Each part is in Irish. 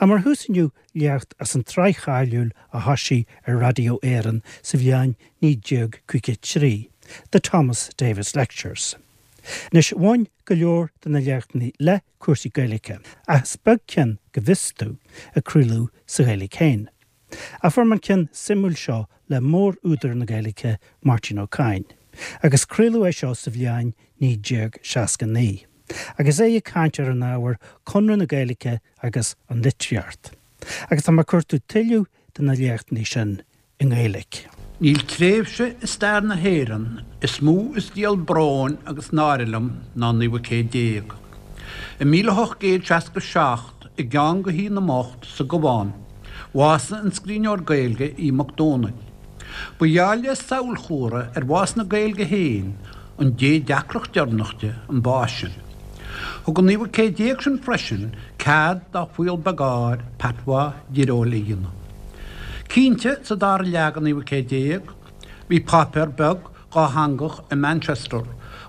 Ach mar thús inniu, léacht as an tsraith cháiliúil a thoisigh ar Raidió Éireann sa bhliain 1953, The Thomas Davis Lectures. Anois, bhain go leor de na léachtanna le cúrsaí Gaeilge, ach is beag ceann, go bhfios domh, a craoladh sa Ghaeilge féin. Ach fuair mé an ceann suimiúil seo le mór-údar na Gaeilge, Máirtín Ó Cadhain, agus craoladh é seo sa bhliain 1969, agus é ag caint ar an ábhar Conradh na Gaeilge agus an Litríocht. Agus tá mé ag cuartú tuilleadh de na léachtanna sin i nGaeilge. Níl tréimhse i stair na hÉireann is mó is díol bróin agus náire liom ná an naoú céad déag. I 1867, i gceann de Thigh na mBocht sa gCabhán, bhásaigh an scríbhneoir Gaeilge Aodh Mac Domhnaill. Ba gheall le samhailchomhartha ar bhás na Gaeilge féin, an dé deacracht deireanach di, an bás sin. Thug an naoú céad déag sin freisin cead dá fuíoll beag áir patois deoiriúil a dhéanamh. Cinnte, sa dara leath den naoú céad déag, bhí páipéar beag dhátheangach i Manchester,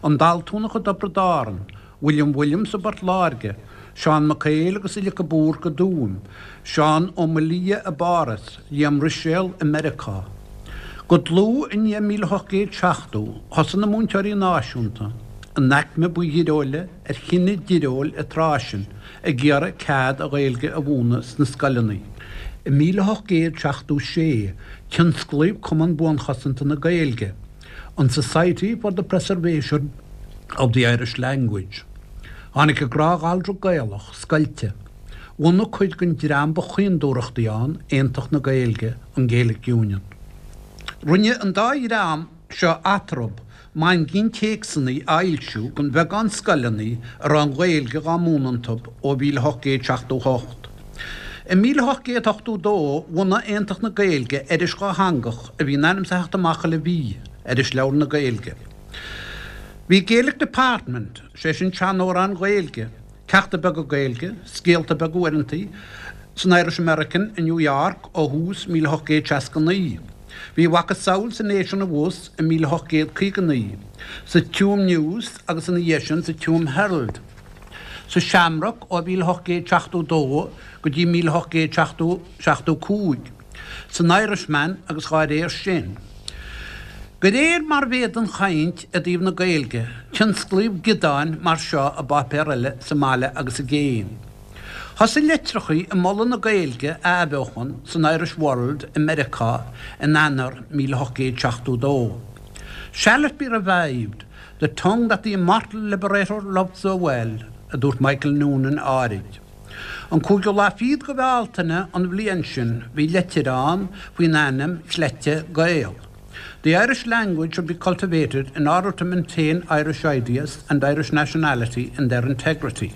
an Daltúnach i dTiobraid Árann, William Williams i bPort Láirge, Seán Mac Éil agus Uillic de Búrca i dTuaim, Seán Ó Maolaodha i bPáras, Liam Ruiséal i Meiriceá. Go dlúth i ndiaidh 1870, thosaigh na múinteoirí náisiúnta, an aicme ba dheoiriúla ar chine deoiriúil an tráth sin, ag iarraidh cead an Ghaeilge a mhúineadh sna scoileanna. I 1876, tionsclaíodh Cumann Buanchosanta na Gaeilge, an Society for the Preservation of the Irish Language. Tháinig an gnáth-ghallra Gaelach scoilte. Bhunaigh cuid den dream ba chaoindúthrachtaí ann Aontacht na Gaeilge, an Gaelic Union. Rinne an dá dhream seo eatarthu maingín téacsanna a fhoilsiú don bheagán scoileanna a raibh an Ghaeilge dhá múineadh iontu ó 1878. I 1882 bhunaigh Aontacht na Gaeilge iris dhátheangach a bhí in ainm is a theacht amach chuile mhí, Irisleabhar na Gaeilge. Bhí Gaelic Department, sé sin seanamhráin Ghaeilge, ceachta beaga Gaeilge, scéalta beaga uaireantaí, san Irish American i New York ó thús 1869. Bhí a mhacasamhail sa Nation abhus i 1859, sa Tuam News agus ina dhiaidh sin sa Tuam Herald. Sa Shamrock ó 1872 go dtí 1875, san Irishman agus dhá réir sin. De réir mar a mhéadaigh an chaint i dtaobh na Gaeilge, tionsclaíodh giodáin mar seo i bpáipéir eile sa mbaile agus i gcéin. Thosaigh litreachaí ag moladh na Gaeilge a athbheochan san Irish World i Meiriceá in Eanáir 1872. Shall it be revived, the tongue that the immortal liberator loved so well, a dúirt Michael Noonan áirid. An cúigiú lá fichead de Bhealtaine an bhliain sin bhí leitir ann faoin ainm chleite Gael. The Irish language should be cultivated in order to maintain Irish ideas and Irish nationality in their integrity.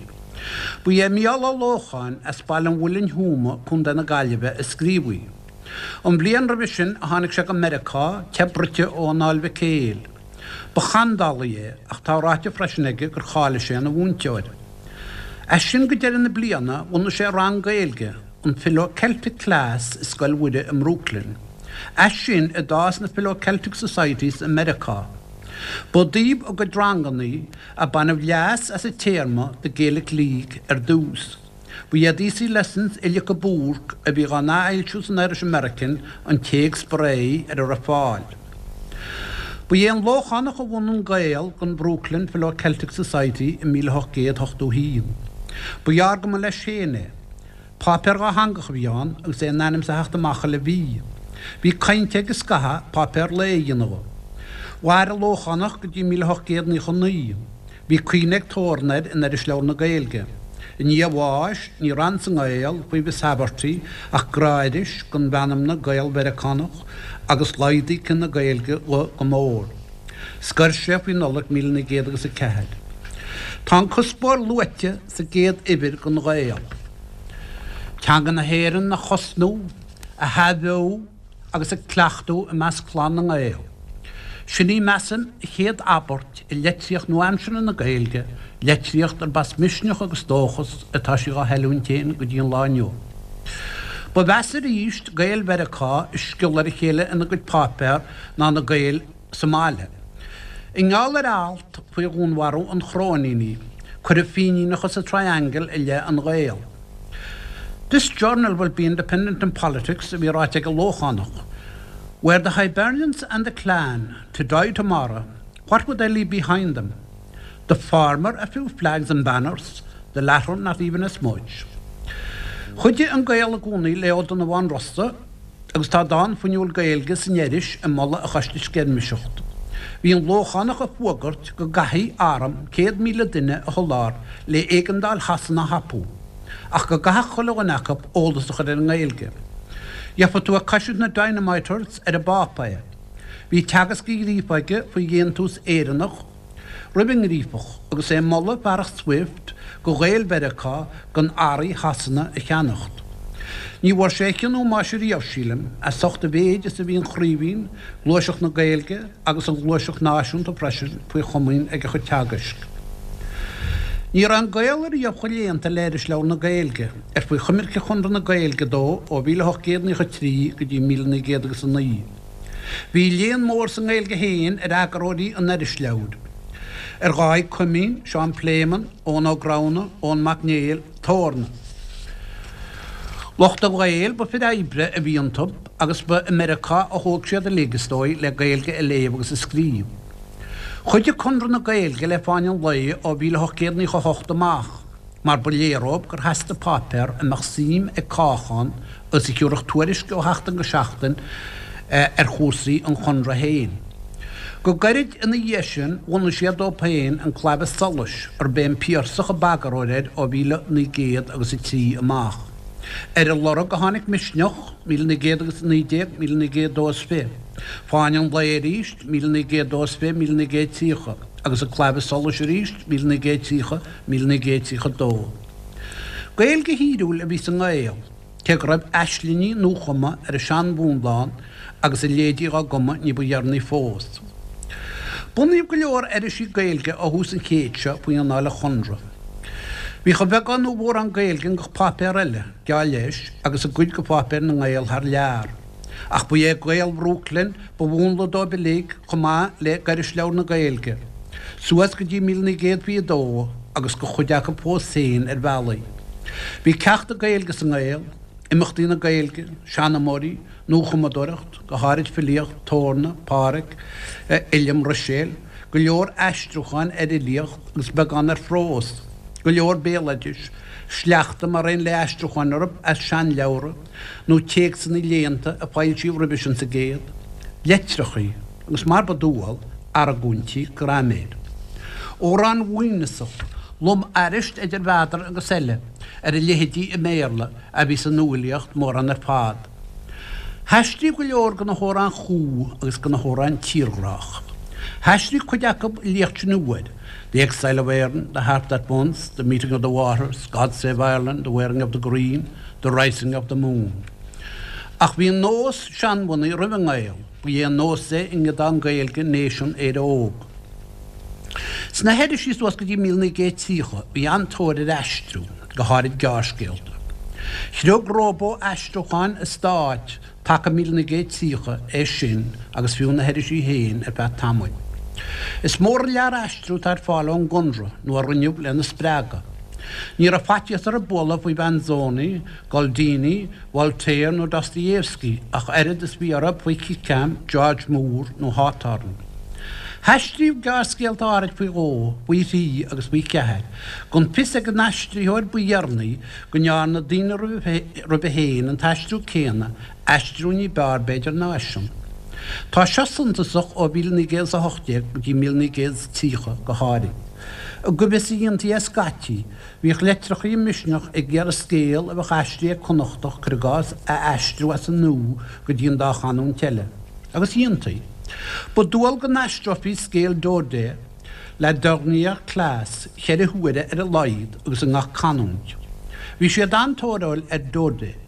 Ba é Mícheál Ó Lócháin as Baile an Mhuilinn Thuama, Co. na Gaillimhe, a scríobh í. An bhliain roimhe sin a tháinig sé go Meiriceá, teith bruite ó Anáil Mhic Éil. Ba sheandálaí é ach tá ráite freisin aige gur cháiligh sé ina mhúinteoir. As sin go deireadh na bliana bhunaigh sé rang Gaeilge, an Philo-Celtic Class i Scoil Mhuire i mBrooklyn. As sin a d'fhás na Philo-Celtic Societies i Meiriceá. Ba i dtaobh a gcuid ranganna a baineadh leas as an téarma The Gaelic League ar dtús. Ba iad Easy Lessons Uillic de Búrc a bhí dhá n-athfhoilsiú san Irish American an téacs ba réidhe ar a raibh fáil. Ba é an Lóchánach a bhunaigh an Gael don Brooklyn Philo-Celtic Society i 1881. Ba ghearr go mba leis féin é. Páipéar dhátheangach a bhí ann agus é in ainm is a theacht amach chuile mhí. Bhí caint aige scaitheamh páipéar lae a dhéanamh dhe. Mhair an Lóchánach go dtí 1899. Bhí cuimhne ag Torn air in Irisleabhar na Gaeilge. I ndiaidh a bháis, ní raibh ann sa nGael faoi Mhiss Haverty ach gnáthiris den mheanmna Gael-Mheiriceánach agus laghdaigh cine na Gaeilge dhe go mór. Scoir sé faoi Nollaig 1904. Tá an cuspóir luaite sa gcéad uimhir den Ghael. Teanga na hÉireann a chosnú, a hathbheoú agus a cleachtadh i measc chlann na nGael. Sin í, measaim, an chéad abairt i litríocht nua-aimseartha na Gaeilge, litríocht arb as misneach agus dóchas atá sí dhá hoiliúint féin go dtí an lá inniu. Ba mheasa arís Gaeil Mheiriceá ag sciolladh ar a chéile ina gcuid páipéar ná na Gaeil sa mbaile. I ngeall ar alt faoi dhúnmharú an Chróinínigh, cuireadh Fíníneachas an Triangle i leith an Ghael. This journal will be independent in politics a bhí ráite ag an Lóchánach. Were the Hibernians and the Clan to die tomorrow, what would they leave behind them? The former a few flags and banners, the latter not even a smudge. Chuidigh An Gael i gcónaí le Ó Donnabháin Rossa agus tá dán fuinniúil Gaeilge san iris ag moladh a choiste sceirmiseachta. Bhí an Lóchánach ag fuagairt go gcaithfí arm 100,000 duine a sholáthar le éigeandáil Shasana a thapú, ach go gcaithfeadh chuile dhuine acu eolas a chur ar an nGaeilge. Gheofa tú ag caisiúint na Dynamiters ar an bpáipéar. Bhí teagasc an Ghríofa aige faoi dhéantús Éireannach roimh an nGríofach agus é ag moladh fearacht Swift go Ghaeil Mheiriceá gan earraí Shasana a cheannacht. Ní bhfuair sé a chion ómóis ariamh, sílim, as ucht a mhéid is a bhí an Chraoibhín, Gluaiseacht na Gaeilge agus an Ghluaiseacht Náisiúnta freisin faoi chomaoin ag a chuid teagaisc. Ní raibh an Gael ariamh chomh léannta le Irisleabhar na Gaeilge, ar faoi choimirce Chonradh na Gaeilge dó ó 1893 go dtí 1909. Bhí léann mór sa nGaeilge féin ar eagarthóirí an Irisleabhair, ar Dháithí Coimín, Seán Pléimeann, Eoghan Ó Gramhna, Eoin Mac Néill, Torna. Lucht an Ghaeil, ba fir oibre a bhí iontu agus ba i Meiriceá a thóg siad uilig, is dóigh, le Gaeilge a léamh agus a scríobh. Chuidigh Conradh na Gaeilge le Fáinne an Lae ó 1898 amach mar ba léir dhóibh gur theastaigh páipéar a mbeadh suim ag cách ann agus a thiúrfadh tuairisc ó sheachtain go seachtain ar chúrsaí an Chonradh féin. Go gairid ina dhiaidh sin bhunaigh siad dóibh féin An Claidheamh Soluis, arb é an Piarsach a b'eagarthóir air ó 1903 amach. Ar a lorg a tháinig Misneach, 1919, 1922, Fáinne an Lae arís, 1922, 1930, agus An Claidheamh Soluis arís, 1930, 1932. Gaeilge thíriúil a bhí sa nGael. Cé go raibh aislingí nuachumtha ar an seanmhúnla ann agus a leithéidí dhá gcumadh ní ba dheireanaí fós. Bunaíodh go leor irisí Gaeilge ó thús an chéid seo faoi anáil an Chonradh. Bhíodh a bheagán nó a mhórán Gaeilge i ngach páipéar eile, geall leis, agus i gcuid de pháipéir na nGael thar lear. Ach ba é Gael Bhrooklyn ba mhúnla dóibh uilig chomh maith le hIrisleabhar na Gaeilge, suas go dtí 1922 agus do chuid acu fós féin ar bhealaí. Bhí ceachta Gaeilge sa nGael, imeachtaí na Gaeilge, seanmóirí, nuachumadóireacht, go háirid filíocht, Torna, Pádhraic Uilliam Ruiséil, go leor aistriúcháin ar fhilíocht agus beagán ar phrós, go leor béaloidis, sleachta mar aon le aistriúcháin orthu as seanleabhra, nó téacsanna léannta a foilsíodh roimhe sin sa gcéad, leitreachaí, agus mar ba dual, argóintí graiméir. Amhráin mhaoithneasach, lom-airist idir mheadar agus eile, ar a leithéidí i mBéarla, a bhí sa nuafhilíocht mórán ar fad. Haistríodh go leor de na hamhráin chú agus de na hamhráin tírghrách. Haistríodh cuid acu i liacht sin uair, The Exile of Erin, The Harp That Once, The Meeting of the Waters, God Save Ireland, The Wearing of the Green, The Rising of the Moon. Ach bhí an nós seanbhunaithe roimh an nGael, ba é an nós é i nGiodán Gaeilge Nation Éire Óg. Sna hirisí suas go dtí 1930 bhí an-tóir ar aistriú, go háirid gearrscéalta. Chriog róbó-aistriúcháin an stáit taca 1930 é sin agus fiú na hirisí féin ar feadh tamaill. Is mór an lear aistriú atá ar fáil ón gConradh nó a rinneadh lena spreagadh. Ní raibh faitíos orthu bualadh faoi Mhanzoni, Goldini, Voltaire nó Dostoievski ach oiread is bhí orthu faoi Kickham, George Moore nó Hawthorne. Haistríodh gearrscéalta áirid faoi dhó, faoi thrí agus faoi cheathair, gan fios ag an aistritheoir ba dheireanaí go ndearna daoine roimhe féin an t-aistriú céanna, aistriú ní b'fhearr b'fhéidir ná eisean. Tá seo suntasach ó 1918 go dtí 1930 go háirid. I gcoimhthíos a dhéantaí é scaití, bhíodh leitreachaí i Misneach ag iarraidh scéal a bheadh aistrithe ag Connachtach, cuir i gcás, a aistriú as an nua go dtí an dá chanúint eile. Agus dhéantaí. Ba dual go n-aistreofaí scéal Daudet, La Dernière Classe, cheithre huaire ar a laghad agus i ngach canúint. Bhí siad an-tóiriúil ar Daudet.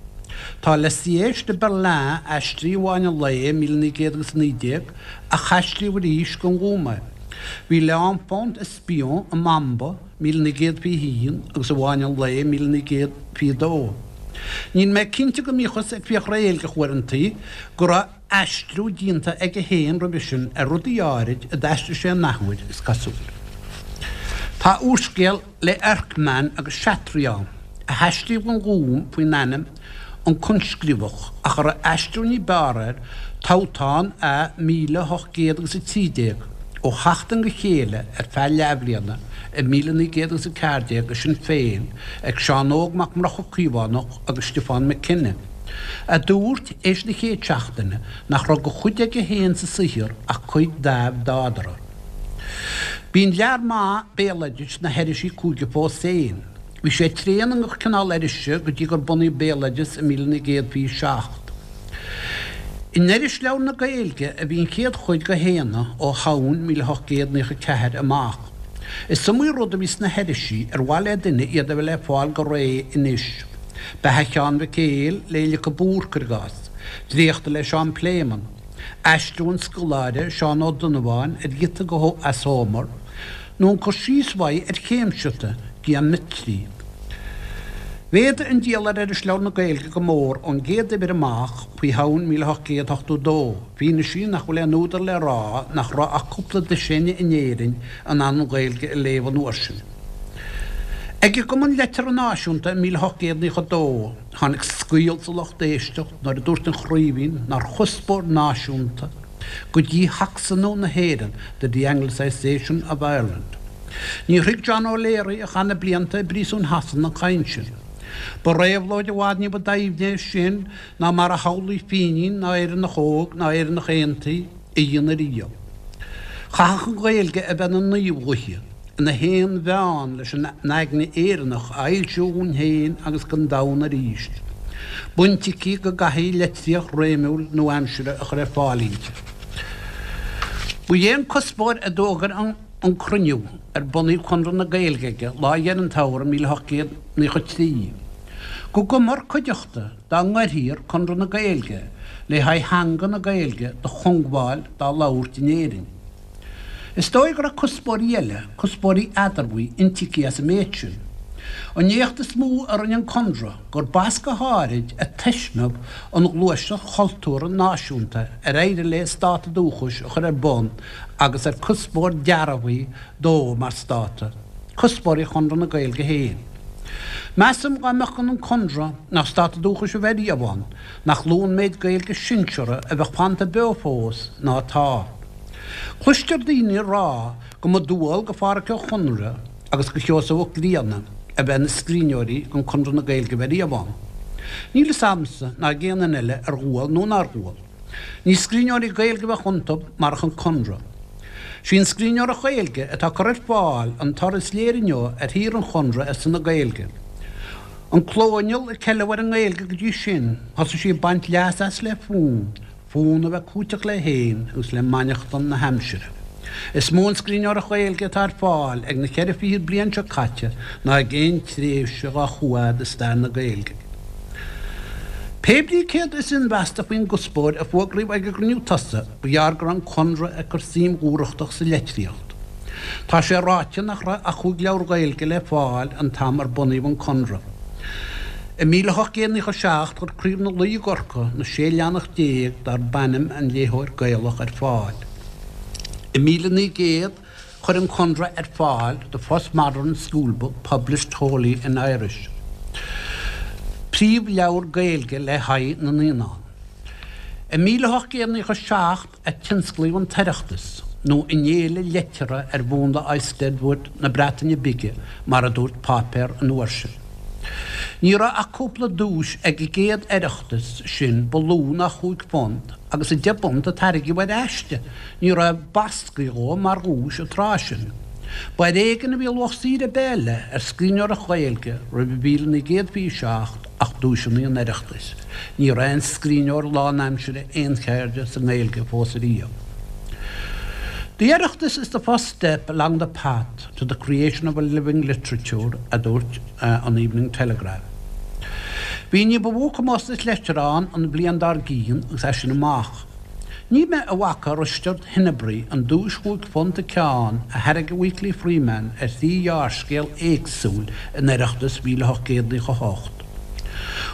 Tá Le Siège de Berlin aistrithe i bhFáinne an Lae 1919 ach haistríodh arís don Ghúm é. Bhí L'Enfant Espion i mBamba 1921 agus i bhFáinne an Lae 1922. Níl mé cinnte go mbíothas ag fiach réilgeach uaireantaí go raibh aistriú déanta aige féin roimhe sin ar rudaí áirid a d'aistrigh sé an athuair, is cosúil. Tá úrscéal le Erckmann agus Chatry ann. a haistríodh don Ghúm faoin ainm An Coinscríobhach, ach a raibh aistriú ní b'fhearr air, Toghthán A 1813, ó sheachtain go chéile ar feadh leathbhliana i 1914 i Sinn Féin ag Seán Óg Mac Murchadha Caomhánach agus Stiofán McKenna, a dúirt, éis na chéad seachtaine, nach raibh de chuid aige féin sa saothar ach cuid d'Adhmhad Fhadhra. Bíonn lear maith béaloidis sna hirisí cúige fós féin. Bhí sé tréan i ngach cineál irise go dtí gur bunaíodh Béaloideas i 1927. In Irisleabhar na Gaeilge a bhí an chéad chuid de Shéanna ó Shamhain 1894 amach. Is iomaí rud a bhí sna hirisí ar mhaith le duine iad a bheith le fáil go réidh anois, Beatha Sheáin Mhic Éil le Uillic de Búrca, cuir i gcás, dréachta le Seán Pléimeann, aistriú an scoláire Seán Ó Donnabháin ar ghiota as Homer, nó an cur síos uaidh ar chéimseata geoiméitrí. Mhéadaigh an díol ar Irisleabhar na Gaeilge go mór ón gcéad uimhir amach faoi Shamhain 1882, fianaise nach bhfuil aon údar le rá nach raibh ach cúpla dosaen in Éirinn in ann an Ghaeilge a léamh an uair sin. Ag an gCumann Liteartha Náisiúnta i 1892, tháinig scaoll sa lucht éisteachta nuair a dúirt an Chraoibhín nár chuspóir náisiúnta go dí-Shacsanú na hÉireann, the de-Anglicisation of Ireland. Níor thuig John O'Leary, a chaith na blianta i bpríosún Shasana, an chaint sin. Ba réabhlóid i bhfad ní ba doimhne é sin ná mar a shamhlaigh Fínín ná Éireannach Óg ná Éireannach Aontaithe a dhéanamh riamh. Chaithfeadh an Ghaeilge a bheith ina naomh-ghuth, ina haon-mheán leis an aigne Éireannach a fhoilsiú dhúinn féin agus don domhan arís. Baint aici go gcaithfí litríocht réimiúil nua-aimseartha a chur ar fáil inti. Ba é an cuspóir a d'fhógair an cruinniú ar bunaíodh Conradh na Gaeilge aige lá Dheireadh an tsamhraidh 1893, go gcumfar cuideachta dá ngairfear Conradh na Gaeilge le haghaidh theanga na Gaeilge do chongbháil dá labhairt in Éirinn. Is dóigh go raibh cuspóirí eile, cuspóirí eadarbhaí, intuigthe as an méid sin. An éacht is mó a rinne an Conradh gur b'as go háirid a taismeadh an ghluaiseacht chultúrtha náisiúnta ar éirigh léi Stát Dúchais a chur ar bun agus ar cuspóir dearbhaithe dó mar stát, cuspóirí Chonradh na Gaeilge féin. Measaim dá mbeadh gan an Conradh ná Stát Dúchais a bheith riamh ann, nach lú an méid Gaeilge sinseartha a bheadh fanta beo fós ná atá. Cloistear daoine ag rá go mba dual go Phádhraic Ó Conaire agus go Sheosamh Ó Grianna a bheith ina scríbhneoirí gan Conradh na Gaeilge a bheith riamh ann. Níl fhios a'msa ná ag aon duine eile ar dhual nó nár dhual. Ní scríbhneoirí Gaeilge a bheadh iontu marach an Conradh. Sí an scríbhneoireacht Ghaeilge atá curtha ar fáil an toradh is léire inniu ar shaothar an Chonradh ar son na Gaeilge. An clóinneal a ceileadh ar an nGaeilge go dtí sin, thosaigh sí ag baint leas as le fonn. Fonn a bheith cúiteach léi féin agus le mainneachtain na haimsire. Is mó an scríbhneoireacht Ghaeilge atá ar fáil ag na cheithre fichid bliain seo caite ná ag aon tréimhse dhá chuaigh i stair na Gaeilge. Pé brí céard is inmheasta faoin gcuspóir a fuagraíodh ag an gcruinniú tosaigh, ba ghearr go raibh an Conradh ag cur suim dhúthrachtach sa litríocht. Tá sé ráite nach raibh ach chúig leabhar Gaeilge le fáil an t-am ar bunaíodh an Conradh. I 1897 chuir Craobh na Laoi i gCorcaigh na 16 leathanach darb ainm An Léitheoir Gaelach ar fáil. I 1900 chuir an Conradh ar fáil The First Modern School Book Published Wholly in Irish, príomhleabhar Gaeilge le haghaidh na naíonán. I 1897 a tionsclaíodh an tOireachtas, nó an fhéile liteartha ar mhúnla Eisteddfod na Breataine Bige, mar a dúirt páipéar an uair sin. Ní raibh ach cúpla duais ag an gcéad Oireachtas sin ba lú ná £5, agus £10 a tairgeadh ar aiste, ní raibh basctha dhó mar dhuais an tráth sin. Ba ar éigean a bhí luach saothair ar bith eile ar scríbhneoireacht Ghaeilge roimh 1927 ach duaiseanna an Oireachtais. Ní raibh aon scríbhneoir lánaimseartha aoncheirde sa nGaeilge fós ariamh. The Oireachtas is the first step along the path to the creation of a living literature, a dúirt an Evening Telegraph. Bhí ní ba mhó comórtas liteartha ann an bhliain dár gcionn agus as sin amach. Ní mé a bhfaca Risteard Henebry an duais £5 an ceann a thairg an Weekly Freeman ar thrí ghearrscéal éagsúil in Oireachtas 1898.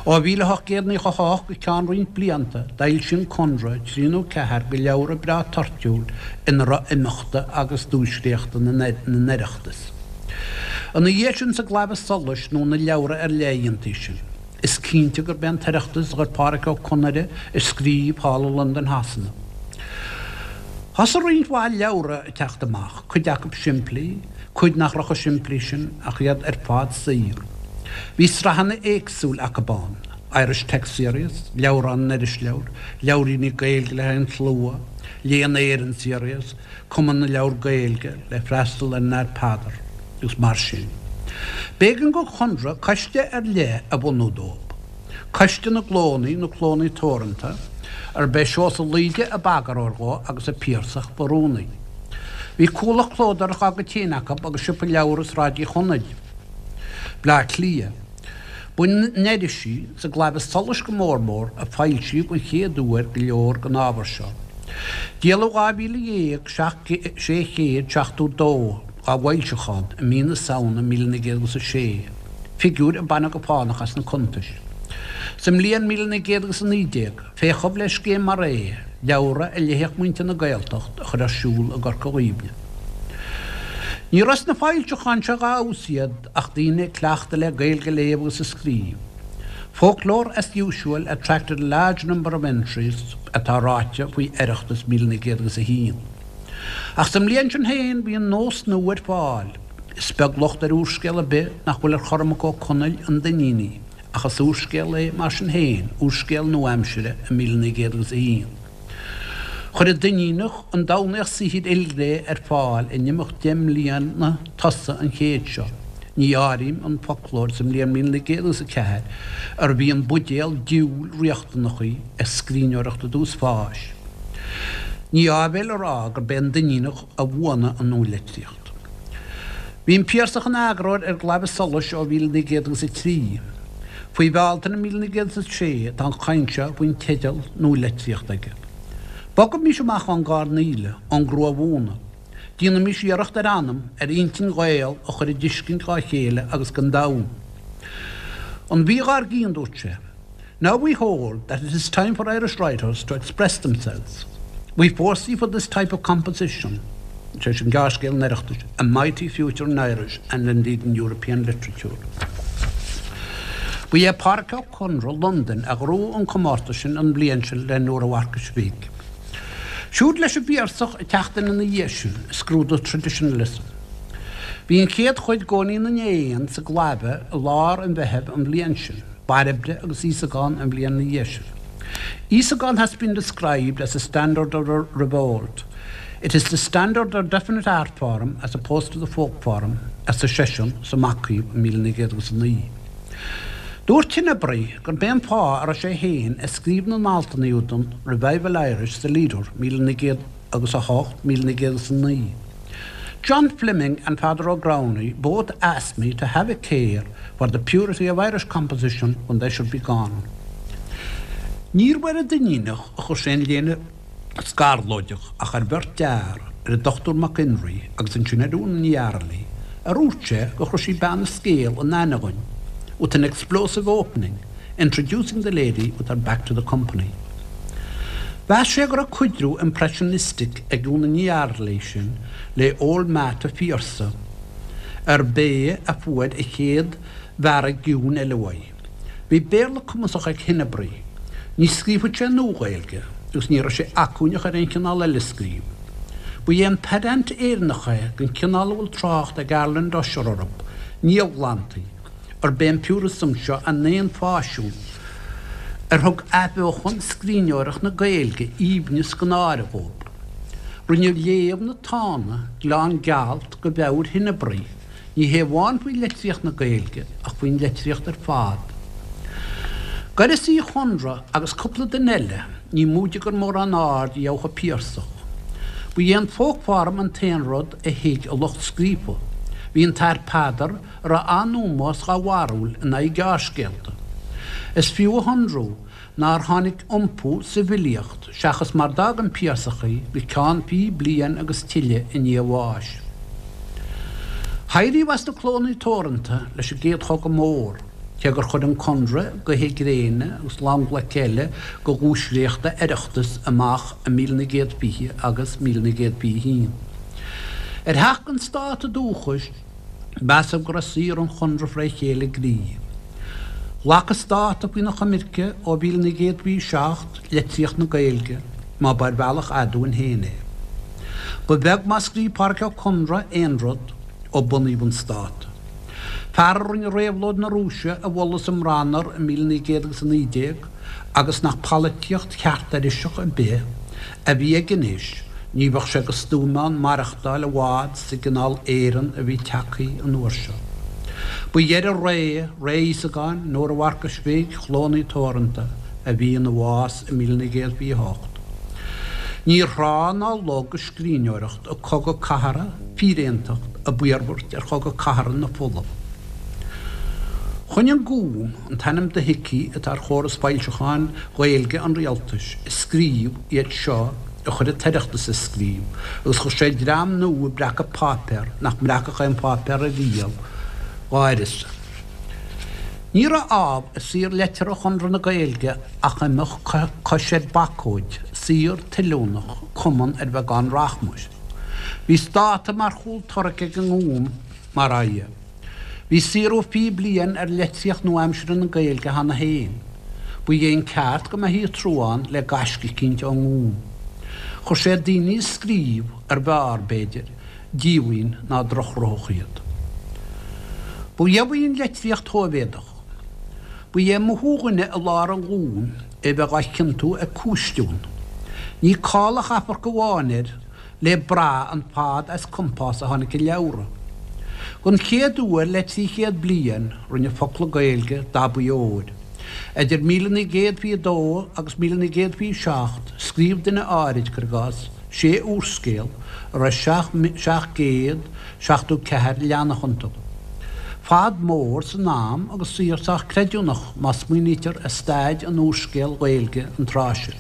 Ó 1898 go ceann roinnt blianta d'fhoilsigh an Conradh trí nó ceathair de leabhra breá toirtiúil ina raibh imeachta agus duaisléachta na nOireachtas. Ina dhiaidh sin sa gClaidheamh Soluis nó na leabhra ar leith a dhéantaí sin. Is cinnte gurb é an tOireachtas a chuir Pádraic Ó Conaire ag scríobh thall i Londain Shasana. Thosaigh roinnt mhaith leabhra ag teacht amach, cuid acu simplí, cuid nach raibh chomh simplí sin ach iad ar fad saor. Bhí sraitheanna éagsúil acu ann, Irish Text Series, Leabhrán na nIrisleabhar, Leabhairíní Gaeilge le haghaidh an tslua, Léann Éireann Series, Cumann na Leabhar Gaeilge le freastal ar an Athair Peadar, agus mar sin. B'éigean don Chonradh coiste ar leith a bhunú dóibh, Coiste na gClónna nó Clónna Teoranta, arb é Seosamh Laoide ab eagarthóir dhó agus an Piarsach ba rúnaí. Bhí cuallacht clódóireachta dá gcuid féin acu agus siopa leabhar i Sráid Uí Chonaill, Bleá Cliath. Ba in irisí, sa gClaidheamh Soluis go mór mór, a foilsíodh an chéad uair go leor den ábhar seo. Díoladh 12,672 dá bhfoilseachán i mí na Samhna 1906, figiúir a baineadh go fánach as na cuntais. Sa mbliain 1919, féachadh le scéim mar é, leabhra a léifeadh muintir na Gaeltacht, a chur ar siúl i gCorca Dhuibhne. Ní raibh sna foilseacháin seo dá fheabhas iad, ach daoine cleachta le Gaeilge a léamh agus a scríobh. Folklore as usual attracted a large number of entries atá ráite faoi Oireachtas 1901. Ach sa mbliain sin féin bhí an nós nua ar fáil. Is beag locht ar úrscéal ar bith nach bhfuil ar Chormac Ó Conaill, An Duinníneach, ach is úrscéal é mar sin féin, úrscéal nua-aimsire i 1901. Chuir an Duinníneach an Domhnaíoch saothair ilghné ar fáil in imeacht deich mbliana tosaigh an chéid seo. Ní áirím an foclóir sa mbliain 1904, arbh í an buidéal diabhail riachtanach í ag scríbhneoireacht i dtús fáis. Ní áibhéil a rá gurb é an Duinníneach a bhuanaigh an nualitríocht. Bhí an Piarsach ina eagarthóir ar an gClaidheamh Soluis ó 1903. Faoi Bhealtaine 1906 tá an chaint seo faoin teideal Nualitríocht aige. Bogaimis amach ón gcoirnéal, ón gcrua-mhúnadh. Déanaimis iarracht ar anam, ar intinn Ghael a chur i dtuiscint dhá chéile agus don domhan. An mhí dhár gcionn, dúirt sé. Now we hold that it is time for Irish writers to express themselves. We foresee for this type of composition, sé sin gearrscéal an Oireachtais, a mighty future in Irish and indeed in European literature. Ba é Pádraic Ó Conaire, Londain, a ghnóthaigh an comórtas sin an bhliain sin le Nóra Mharcais Bhig. Siúd leis an bPiarsach ag teacht in ina dhiaidh sin, ag scrúdú Traditionalism. Bhí an chéad chuid d'Eoinín na nÉan sa gClaidheamh i lár an Mheithimh an bhliain sin. Bairbre agus Íosagán an bhliain ina dhiaidh sin. Íosagán has been described as a standard of revolt. It is the standard of definite art form as opposed to the folk form, arsa seisean sa Macaomh i 1909. Dúirt Henebry gurb é an fáth a raibh sé féin ag scríobh na n-altanna údan Revival Irish sa Leader 1908, 1909. John Fleming and Father O'Growney both asked me to have a care for the purity of Irish composition when they should be gone. Níorbh ar an Duinníneach a chuir sé an léine scarlóideach ach ar bheirt fhear, ar an Dr Mac Enrí agus ansin ar Úna Ní Fhearghaile, a dhúirt sé go raibh sí bean an scéil in aithne againn, with an explosive opening, introducing the lady with her back to the company. Mheas sé go raibh cuidriú impressionistic ag Úna Ní Fhearghaile sin le Old Matt a Phiarsaigh, arb é a fuair a chéad bhearradh ciúin eile uaidh. Bhí Béarla cumasach ag Henebry. Ní scríobhadh sé Nua-Ghaeilge agus ní raibh sé acmhainneach ar aon chineál eile scríobh. Ba é an pedant Éireannach é den chineál a bhfuil trácht ag Arland Ussher orthu, niamhghlantaí, arb é an purism seo a n-aon pháisean, ar thug athbheochan scríbhneoireacht na Gaeilge aoibhneas gan áireamh dhóibh. Rinne léamh na Tána gleann gealt go mheabhair Henebry, ní hé amháin faoi litríocht na Gaeilge ach faoin litríocht ar fad. D'uireasa Uí Chonaire agus cúpla duine eile, ní móide gur mórán aird a gheobhadh an Piarsach. Ba é an folk form an t-aon rud a thuig a lucht scríofa. Bhí an tAthair Peadar, a raibh an-ómós dhá bharúil in aghaidh gearrscéalta. Is fiú a shonrú nár tháinig iompú sa bhfilíocht seachas mar d'fhág an Piarsach í go ceann fiche bliain agus tuilleadh i ndiaidh a bháis. Éiríodh as na clónna teoranta leis an gCéad Chogadh Mór, cé gur chuir an Conradh Gaoithe Gréine agus long-ghlaic eile de dhuaisléachta Oireachtais amach i 1920 agus 1921. Ar theacht don stát dúchais. Measadh go raibh saothar an Chonradh fré chéile gcroí. Ghlac an Stát faoina choimirce ó 1927 litríocht na Gaeilge, má ba ar bhealach aduain féin é. Ba bheag má scríobh Pádraic Ó Conaire aon rud ó bunaíodh an Stát. Fear a rinne réabhlóid na Rúise a mholadh sa mBranar i 1919 agus nach polaitíocht cheart Iriseach ar bith a bhí aige anois, ní bheadh sé de stuaim ann maireachtáil i bhfad sa gcineál Éireann a bhí tagtha an uair seo. Ba dheireadh ré, ré Íosagáin, Nóra Mharcais Bhig, Chlódhna Teoranta, a bhí ina bhás i 1928. Níor thrá ná log a scríbhneoireacht ag cogadh cathartha, fíréantacht, ab iarmhairt ar chogadh cathartha na fola. Choinnigh an Gúm, an t-ainm dothuigthe atá ar chóras foilseacháin Ghaeilge an rialtais, ag scríobh iad seo a chuir an tOireachtas ag scríobh agus chuir sé dream nua ag breacadh páipéar nach mbreacfadh aon pháipéar ariamh dá uireasa. Ní raibh ámh i saothar liteartha Chonradh na Gaeilge ach imeacht cois ar bacóid, saothar tuilliúnach, cumann ar bheagán rachmais. Bhí Stát mar chúl tarraic ag an nGúm, mar dhea. Bhí saothrú 20 bliain ar litríocht nua-aimseartha na Gaeilge cheana féin. Ba é an ceart go mbeifí ag trúán le gaisce eicínt ón nGúm. Chuir sé daoine ag scríobh, ar bhfearr, b'fhéidir, díomhaoin ná drochghnoitheach iad. Ba gheimh í an litríocht Shóivéadach. Ba é mothú dhuine i lár an Ghúim é bheith á chiontú ag cúistiún. Ní call a chaithfear amháin air le brath an fad as compás a tháinig a leabhra. Don chéad uair le 300 bliain rinne focla Gaeilge dabaí óir. Idir 1922 agus 1927 scríobh duine áirid, cuir i gcás, sé úrscéal a raibh 774 leathanach iontu. Fad mór san am agus saothar sách creidiúnach má smaoinítear ar staid an úrscéil Ghaeilge an tráth sin.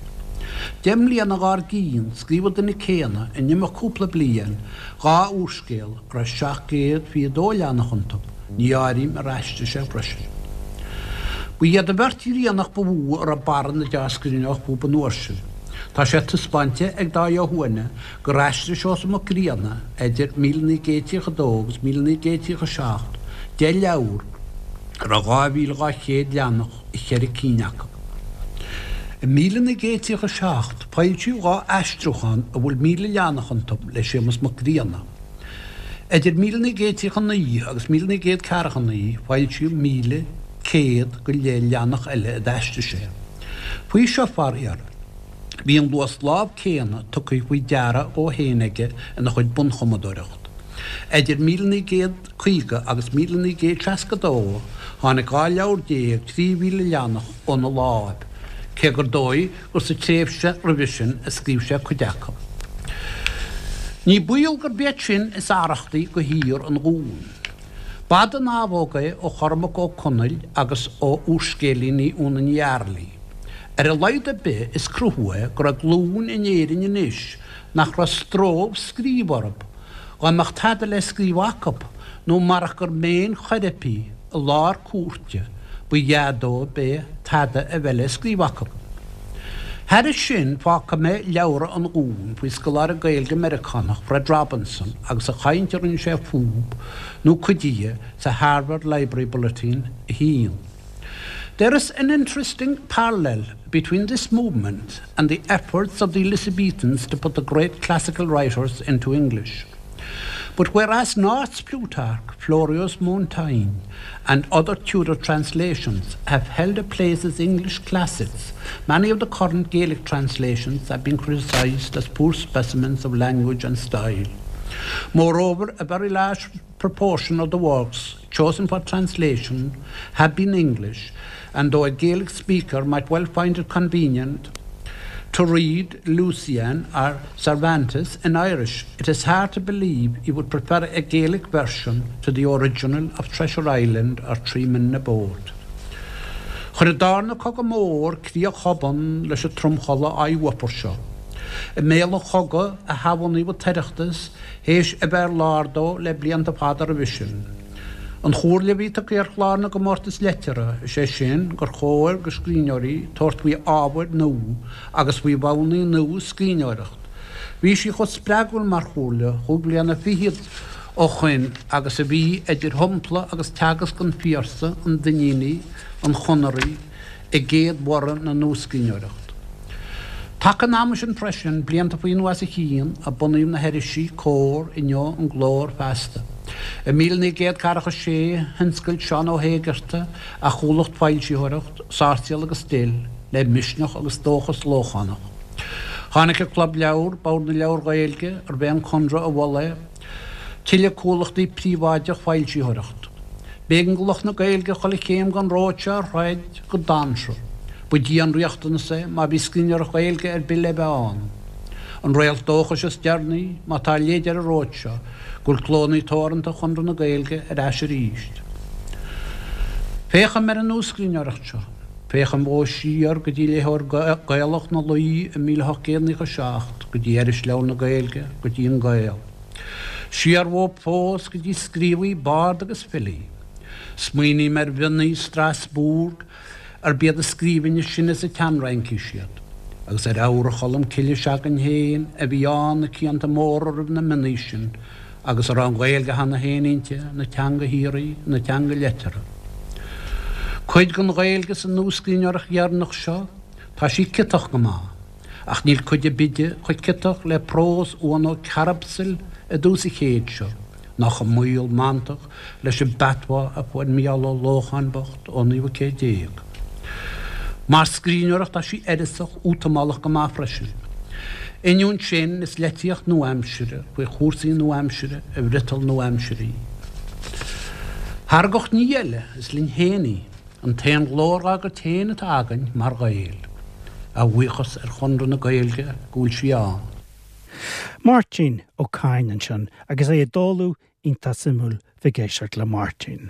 Deich mbliana dhár gcionn, scríobh an duine céanna, in imeacht cúpla bliain, dhá úrscéal a raibh 722 leathanach iontu, ní áirím ar aistrigh sé freisin. Ba iad an bheirt Ghriannach ba mhó a raibh barra na deá-scríbhneoireachta fúthu an uair sin. Tá sé taispeáinte ag Dáithí Ó hUaithne gur aistrigh Seosamh Mac Grianna idir 1932 agus 1937 deich leabhar a raibh 2,200 leathanach i cheithre cinn acu. I 1937 foilsíodh dhá aistriúchán a bhfuil 1,000 leathanach iontu le Séamus Mac Grianna. Idir 1939 agus 1949 foilsíodh 1,100 go leith leathanach eile a d'aistrigh sé. Faoi seo, faraor, bhí an luas lámh céanna tugtha faoi deara dhó féin aige ina chuid bunchumadóireacht. Idir 1900. 50 agus 1962, tháinig 12 leabhar 3,000 leathanach óna láimh, cé gur dóigh gur sa tréimhse roimhe sin a scríobh sé cuid acu. Ní baol gurb iad sin is arrachtaí do shaothar an Ghúim. B'fhada an abhóg é ó Chormac Ó Conaill agus ó úrscéilíní Úna Ní Fhearghaile. Ar a laghad ar bith is cruthú é go raibh glúin in Éirinn anois nach raibh stró scríobh orthu, Dá mbeadh tada le scríobh acu, nó marach gur méin choirpigh i lár cúirte ba ea dóibh é tada a bheith le scríobh acu. Thairis sin, fágfaidh mé leabhra an Ghúim faoi scoláire Gaeilge Meiriceánach, Fred Robinson, agus an chaint a rinne sé fúb, nó cuid dhe, sa Harvard Library Bulletin 1. There is an interesting parallel between this movement and the efforts of the Elizabethans to put the great classical writers into English. But whereas North's Plutarch, Florio's Montaigne, and other Tudor translations have held a place as English classics, many of the current Gaelic translations have been criticised as poor specimens of language and style. Moreover, a very large proportion of the works chosen for translation have been English, and though a Gaelic speaker might well find it convenient to read Lucian or Cervantes in Irish, it is hard to believe he would prefer a Gaelic version to the original of Treasure Island or Tree Men in a Boat. Chuir an darna cogadh mór críoch thobann leis an tromchodladh oidhre seo. I mbéal an chogaidh a hathbhunaíodh an tOireachtas théis a bheith ar lár dó le blianta fada roimhe sin. An chomhairle a bhí tugtha ar chlár na gcomórtas liteartha, is é sin gur chóir do scríbhneoirí tabhairt faoi ábhair nua agus faoi mhodhanna nua scríbhneoireacht. Bhí sí chomh spreagúil mar chomhairle chúig bliana fichead. ó shoin agus a bhí idir shampla agus teagasc an Phiarsaigh, an Duinnínigh, an Chonaraigh i gcéad bhorradh na nuascríbhneoireachta. Taca an ama sin freisin, blianta faoi nó as a chionn, a bunaíodh na hirisí, Comhar, Inniu, An Glór, Feasta. I 1946, thionscail Seán Ó hÉigeartaigh a chomhlacht foilsitheoireacht, Sáirséal agus Dill, le misneach agus dóchas Lóchánach. Tháinig an Club Leabhar, Bord na Leabhar Gaeilge, arbh é an Conradh a mhol é, tuilleadh comhlachtaí príobháideach foilsitheoireacht. B'éigean do lucht na Gaeilge chuile chéim den ród seo a throid go dainséarach. Ba dianriachtanas é má bhí scríbhneoireacht Ghaeilge ar bith le bheith ann. An réalt dóchais is deireanaí, má tá leid ar an ród seo, go bhfuil clónna teoranta Chonradh na Gaeilge ar ais arís. Féachaim ar an nuascríbhneoireacht seo. Féachaim fós siar go dtí Léitheoir Gaelach na Laoi i 1897, go dtí Irisleabhar na Gaeilge, go dtí An Gael. Siar uathu fós go dtí scríobhaí, baird agus filí. Smaoiním ar mhionnaí Strasbourg, arb iad a scríbhinn is sine sa tsean-Fhraincis iad, agus ar Eabhra Cholm Cille se'againn féin a bhí ann na cianta móra roimh na mionnaí sin, agus a raibh an Ghaeilge cheana féin inti, ina teanga shíoraí, ina teanga liteartha. Cuid den Ghaeilge sa nuascríbhneoireacht dheireanach seo, tá sí ciotach go maith, ach níl cuid ar bith di chomh ciotach le prós Uan Ó Cearbsaill i dtús an chéid seo, ná chomh maol mantach leis an bpatois a fuair Mícheál Ó Lócháin bocht ón naoú céad déag. Mar scríbhneoireacht tá sí uireasach, útamálach go maith freisin. Ainneoin sin, is litríocht nua-aimsire faoi chúrsaí nua-aimsire i bhfriotal nua-aimsire í. Thar gach ní eile, is linn féin í, an t-aon ghlór dhá gcuid féin atá againn mar Ghaeil. A bhuíochas ar Chonradh na Gaeilge go bhfuil sí ann. Máirtín Ó Cadhain ansin agus é ag dáileadh iontach suimiúil bheith ag éisteacht le Máirtín.